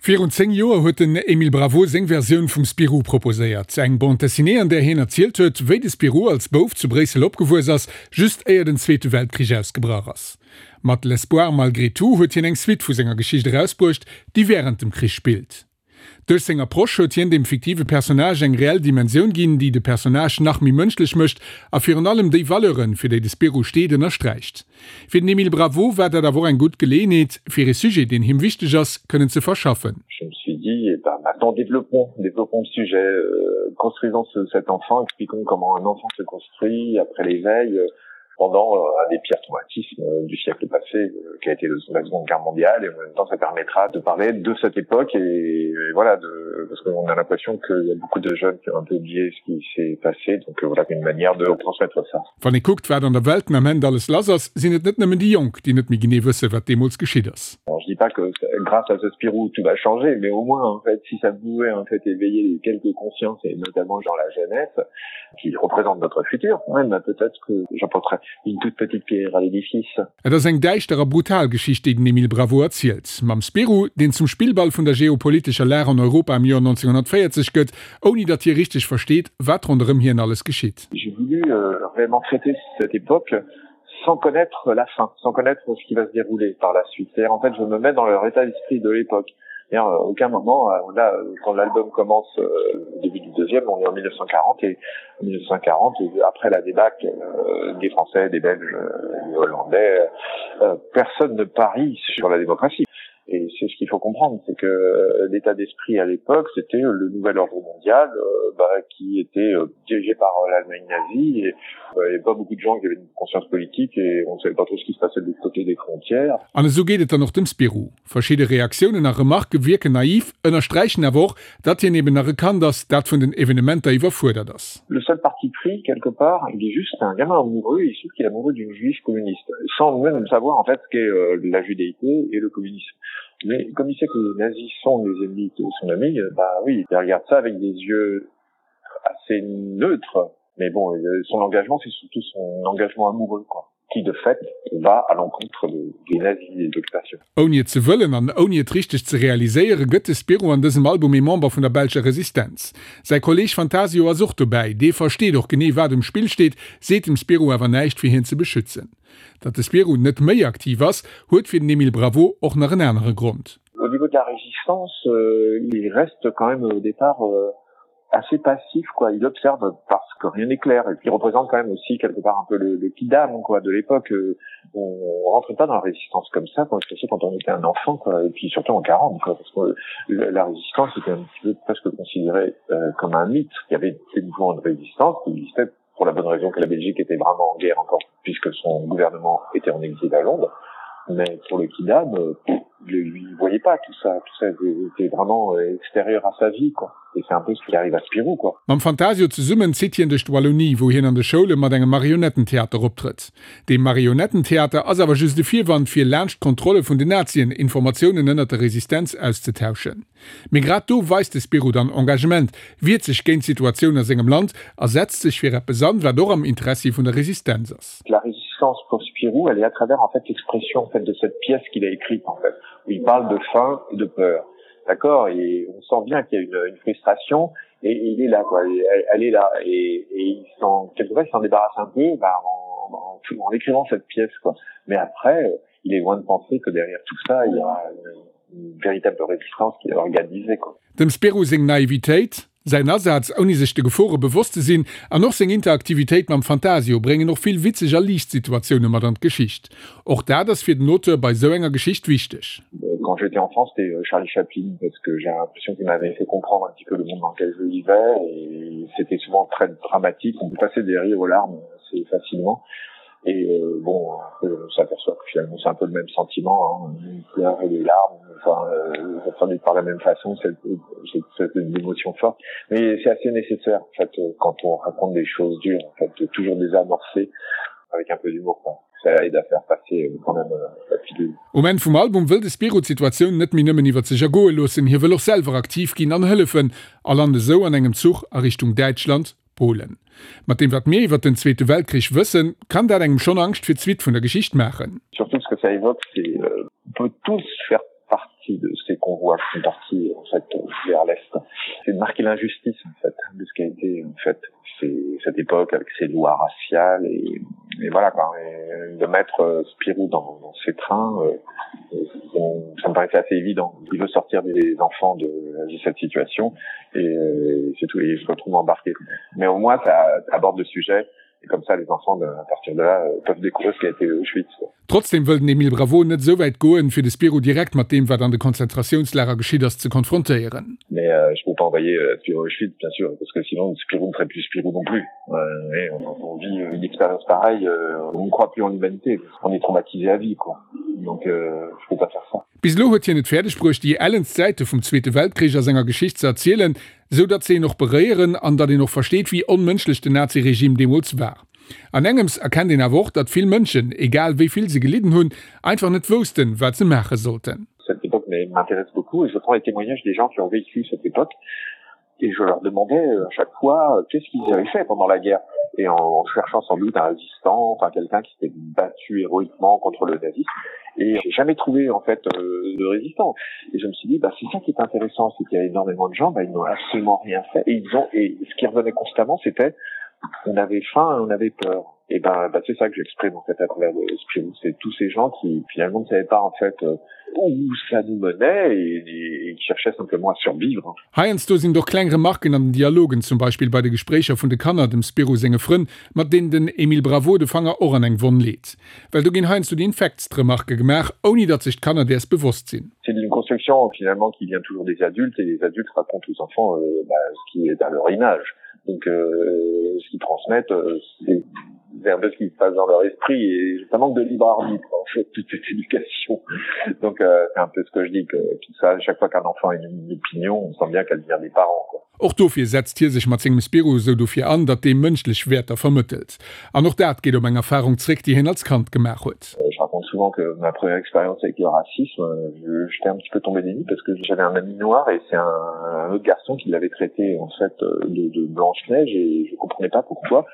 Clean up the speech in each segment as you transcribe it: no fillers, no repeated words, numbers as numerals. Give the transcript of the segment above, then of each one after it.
Virun 10 Joer huet den Emile Bravo seng Versioun vum Spirou proposéiert. Eng Bande dessinée, an där hien erzielt huet, wéi de Spirou als Bouf zu Bréissel opgewuess ass, just éier den Zweete Weltkrich ausgebrach ass. Mat L'espoir malgré tout huet hien eng Suite vu senger Geschicht erausbruecht, déi wärend dem Krich spillt. Duerch seng Approche huet hien dem fiktive Personnage eng reell Dimensioun ginn, déi de Personnage nach méi mënschlech mécht a virun allem déi Valeuren, fir déi de Spirou steet, ënnersträicht. Fir den Emile Bravo war dat awer och eng gutt Geleeënheet, fir ee Sujet, deen him wichteg ass, kënnen ze verschaffen. Je me suis dit, eh ben maintenant développons, développons le sujet, construisons ce, cet enfant, expliquons comment un enfant se construit après l'éveil, pendant euh, un des pires traumatismes euh, du siècle passé euh, qui a été la seconde guerre mondiale et en même temps ça permettra de parler de cette époque et, et voilà de parce qu'on a l'impression qu'il y a beaucoup de jeunes qui ont un peu oublié ce qui s'est passé donc voilà une manière de transmettre ça. Wann ee kuckt, wat an der Welt den Ament alles lass ass, sinn et net nëmmen déi Jonk, déi net méi genee wëssen, wat deemools geschitt ass. Alors je dis pas que grâce à ce Spirou tout va changer, mais au moins en fait si ça pouvait en fait éveiller quelques consciences et notamment genre la jeunesse qui représente notre futur, ouais, ben peut-être que j'apporterai une toute petite pierre à l'édifice. Et ass eng däischter a brutal Geschicht, déi den Emile Bravo erzielt. Mam Spirou, deen zum Spillball vun der geopolitescher Lag an Europa am Joer 1940 gëtt, ouni datt hie richteg versteet, wat ronderëm hien alles geschitt. J'ai voulu réellement traiter cette époque sans connaître la fin, sans connaître ce qui va se dérouler par la suite. C'est-à-dire en fait, je me mets dans leur état d'esprit de l'époque. Et à aucun moment euh, là quand l'album commence euh, au début du deuxième on est en 1940 et 1940 après la débâcle euh, des français des belges euh, des hollandais euh, personne ne parie sur la démocratie et c'est ce qu'il faut comprendre c'est que euh, l'état d'esprit à l'époque c'était le nouvel ordre mondial euh, bah, qui était euh, dirigé par euh, l'allemagne nazie et, euh, et pas beaucoup de gens qui avaient une conscience politique et on ne savait pas trop ce qui se passait de l'autre côté des frontières an esou geet et dann och dem Spirou. Verschidde Reaktiounen a Remarquë wierken naiv, ënnersträichen awer och, datt hien eben nach e Kand ass, dat vun den Evenementer iwwerfuerdert ass. Le seul parti pris, quelque part, il est juste un gamin amoureux, il se trouve qu'il est amoureux d'une juive communiste, sans même savoir en fait ce qu'est euh, la judéité et le communisme. Mais comme il sait que les nazis sont les ennemis de son ami, bah oui, il regarde ça avec des yeux assez neutres, mais bon, euh, son engagement, c'est surtout son engagement amoureux, quoi qui de fait va à l'encontre de, des nazis et d'occupation. Ouni et ze wëllen an ouni et richteg ze realiséieren, gëtt de Spirou an dësem Album ee Member vun der belscher Resistenz. Säi Kolleeg Fantasio ass och dobäi, dee versteet och genee wat um Spill steet, seet dem Spirou awer näischt fir hien ze beschützen. Datt de Spirou net méi aktiv ass, huet fir den Emile Bravo och nach en anere Grond. Au niveau de la résistance, il reste quand même au départ assez passif quoi il observe parce que rien n'est clair et puis il représente quand même aussi quelque part un peu le, le kidam quoi de l'époque euh, on rentre pas dans la résistance comme ça quand surtout quand on était un enfant quoi et puis surtout en 40 quoi parce que la résistance était un petit peu presque considérée euh, comme un mythe il y avait des mouvements de résistance qui existaient pour la bonne raison que la Belgique était vraiment en guerre encore puisque son gouvernement était en exil à Londres mais pour le kidam euh, lui voyait pas tout ça tout ça était vraiment euh, extérieur à sa vie quoi et c'est un peu ce qui arrive à Spirou quoi. Mam Fantasio zesummen zitt hien duerch d'Wallonie, wou hien an de Schoule mat engem Marionettentheater optrëtt. Dee Marionettentheater ass awer just e Virwand fir laanscht d'Kontrolle vun den Nazien Informatiounen ënnert der Resistenz auszetauschen. Mee grad do weist de Spirou dann Engagement, wiert sech géint d'Situatioun a sengem Land a setzt sech fir eppes an, wat och am Interessi vun der Resistenz ass. La résistance pour Spirou, elle est à travers en fait l'expression en fait de cette pièce qu'il a écrite en fait, où il parle de faim et de peur. D'accord et on sent bien qu'il y a une, une frustration et, et il est là quoi, elle, elle est là et, et il s'en quelque part il s'en débarrasse un peu bah, en, en, en, en écrivant cette pièce quoi. Mais après il est loin de penser que derrière tout ça il y a une, une véritable résistance qui est organisée quoi. Dem Spirou seng Naivitéit, säin Asaz ouni sech de Gefore bewosst ze sinn an och seng Interaktivitéit mam Fantasio bréngen och vill witzeg a liicht Situatioune mat an d'Geschicht. Och dat ass fir den Auteur bei sou enger Geschicht wichteg. Quand j'étais enfant, c'était euh, Charlie Chaplin parce que j'ai l'impression qu'il m'avait fait comprendre un petit peu le monde dans lequel je vivais et c'était souvent très dramatique, on passait des rires aux larmes assez facilement. Et euh, bon, on s'aperçoit que finalement c'est un peu le même sentiment, hein, une pleurs et des larmes, enfin, euh, ça traduit par la même façon cette, cette, cette une émotion forte. Mais c'est assez nécessaire en fait euh, quand on raconte des choses dures, en fait, de toujours désamorcer avec un peu d'humour quoi. Ça aide à faire passer euh, quand même euh, la pilule. Um Enn vum Album wëll de Spirou d'Situatioun net méi nëmmen iwwer sech ergoe loossen, hie wëll och selwer aktiv ginn an hëllefen a lant esou an engem Zuch a Richtung Däitschland, Polen. Mat deem wat mir iwwer den Zweete Weltkrich wëssen, kann dat engem schonn Angscht fir d'Suite vun der Geschicht maachen. Surtout ce que ça évoque, c'est euh, on peut tous faire partie. partie de ces convois qui sont partis en fait vers l'est. C'est de marquer l'injustice en fait de ce qui a été en fait c'est cette époque avec ses lois raciales et, et voilà quoi et de mettre euh, Spirou dans, dans ces trains euh, bon, ça me paraissait assez évident il veut sortir des enfants de, de cette situation et, euh, c'est tout et je retrouve embarqué mais au moins ça aborde le sujet et comme ça les enfants de, à partir de là euh, peuvent découvrir ce qui a été Auschwitz quoi. Trotzdem wëll den Emile Bravo net esou wäit goen, fir de Spirou direkt mat deem, wat an de Konzentratiounslager geschitt ass, ze konfrontéieren. Mais euh, je peux pas envoyer euh, Spirou à Auschwitz, bien sûr, parce que sinon Spirou ne serait plus Spirou non plus. Euh, et on, on vit une expérience pareille, euh, on ne croit plus en l'humanité, on est traumatisé à vie, quoi. Donc euh, je peux pas faire ça. Bis elo huet hien et fäerdeg bruecht, déi ellenst Säite vum Zweete Weltkrich a senger Geschicht ze erzielen, esou datt se een och beréieren an datt een och versteet, wéi onmënschlech den Naziregime deemools war. An engems erkennt een awer och, datt vill Mënschen, egal wéi vill se gelidden hunn, einfach net woussten, wat se maache sollten. Cette époque m'intéresse beaucoup et je prends les témoignages des gens qui ont vécu cette époque et je leur demandais euh, à chaque fois euh, qu'est-ce qu'ils avaient fait pendant la guerre et en cherchant sans doute un résistant enfin quelqu'un qui s'était battu héroïquement contre le nazisme et j'ai jamais trouvé en fait euh, de résistant et je me suis dit bah c'est ça qui est intéressant c'est qu'il y a énormément de gens bah, ils n'ont absolument rien fait et ils ont et ce qui revenait constamment c'était on avait faim et on avait peur et ben bah, c'est ça que j'exprime en fait à travers le Spirou c'est tous ces gens qui finalement ne savaient pas en fait euh, où ça nous menait et, et, et qui cherchaient simplement à survivre. Heiansdo sinn et och kleng Remarken an den Dialogen, zum Beispill bei de Gespréicher vun de Kanner, dem Spirou senge Frënn, mat deenen den Emile Bravo de Fanger och an eng Wonn leet. Well do ginn heiansdo déi infektst Remarke gemaach, ouni datt sech d'Kanner däers bewosst sinn. C'est une construction finalement qui vient toujours des adultes et les adultes racontent aux enfants euh, bah, ce qui est à leur image. Donc euh, ce qu'ils transmettent, euh, c'est c'est un peu ce qui se passe dans leur esprit et ça manque de libre arbitre en fait toute cette éducation donc euh, c'est un peu ce que je dis que tout ça chaque fois qu'un enfant a une, une opinion on sent bien qu'elle vient des parents quoi. Och dofir setzt hie sech mat sengem Spirou esou dofir an, datt dee mënschlech Wäerter vermëttelt. An och dat geet op eng Erfarung zréck, déi hien als Kand gemaach huet. Je raconte souvent que ma première expérience avec le racisme, j'étais un petit peu tombé des nues parce que j'avais un ami noir et c'est un, un autre garçon qui l'avait traité en fait de, de blanche neige et je comprenais pas pourquoi.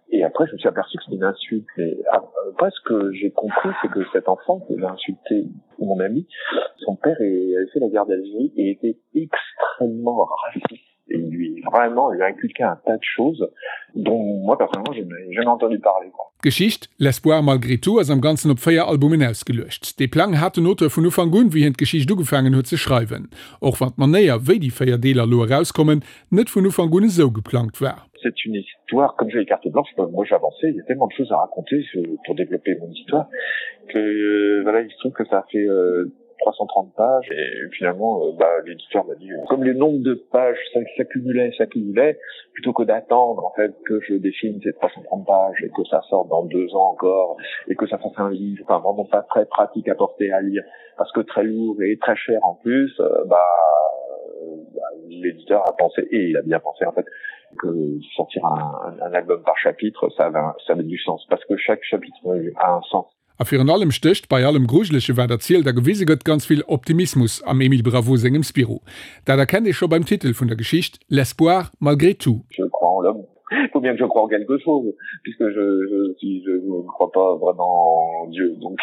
Et après je me suis aperçu que c'était une insulte mais après ce que j'ai compris c'est que cet enfant qui avait insulté mon ami, son père avait fait la guerre d'Algérie et était extrêmement raciste et lui vraiment lui inculqué un tas de choses dont moi personnellement je n'ai jamais entendu parler quoi. D'Geschicht L'espoir malgré tout ass am Ganzen op 4 Albumen ausgeluecht. Dee Plang hat den Auteur vun Ufank un, wéi hien d'Geschicht ugefaangen huet ze schreiwen. Och wann d'Manéier, wéi déi 4 Deeler elo erauskommen, net vun Ufank un esou geplangt war. C'est une histoire comme j'ai carte blanche moi j'avançais il y a tellement de choses à raconter pour développer mon histoire que euh, voilà il se trouve que ça a fait euh, 330 pages et finalement euh, bah, l'éditeur m'a dit euh, comme le nombre de pages s'accumulait s'accumulait plutôt que d'attendre en fait que je dessine ces 330 pages et que ça sorte dans deux ans encore et que ça fasse un livre enfin vraiment pas très pratique à porter à lire parce que très lourd et très cher en plus euh, bah, bah l'éditeur a pensé et il a bien pensé en fait que sortir un, un, un album par chapitre ça avait, ça avait du sens parce que chaque chapitre a un sens A virun allem stécht bei allem Grujelege wat erzielt a gewise gëtt, ganz vill Optimismus am Emile Bravo sengem Spirou. Dat erkennt ee scho beim Titel vun der Geschicht, L'espoir malgré tout. Je crois en l'homme. Il faut bien que je croie en quelque chose, puisque je, je, si je ne crois pas vraiment en Dieu. Donc,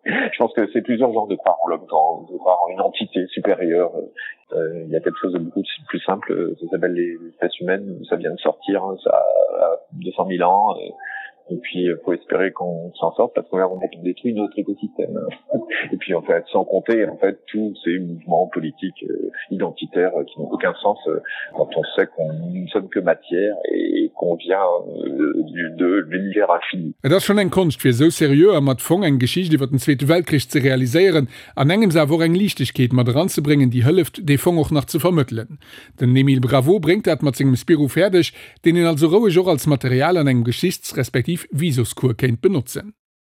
je pense que c'est plusieurs genres de croire en l'homme, de croire en une entité supérieure. Euh, il y a quelque chose de beaucoup plus simple, ça s'appelle les espèces humaines, ça vient de sortir, ça a 200 000 ans. Euh, et puis faut espérer qu'on s'en sorte parce qu'on a détruit notre écosystème et puis en fait sans compter en fait tous ces mouvements politiques euh, identitaires euh, qui n'ont aucun sens euh, quand on sait qu'on ne sommes que matière et qu'on vient euh, du de l'univers infini. Et ass schonn eng Konscht fir esou seriö a mat Fong eng Geschicht iwwer den Zweete Weltkrich ze realiséieren an engems awer och eng Liichtegkeet mat eranzebréngen déi hëlleft dee Fong och nach ze vermëttelen. Den Emile Bravo bréngt dat mat sengem Spirou fäerdeg, deen een also roueg och als Material an engem Geschichts respektiv Visoscours kéint benotzen.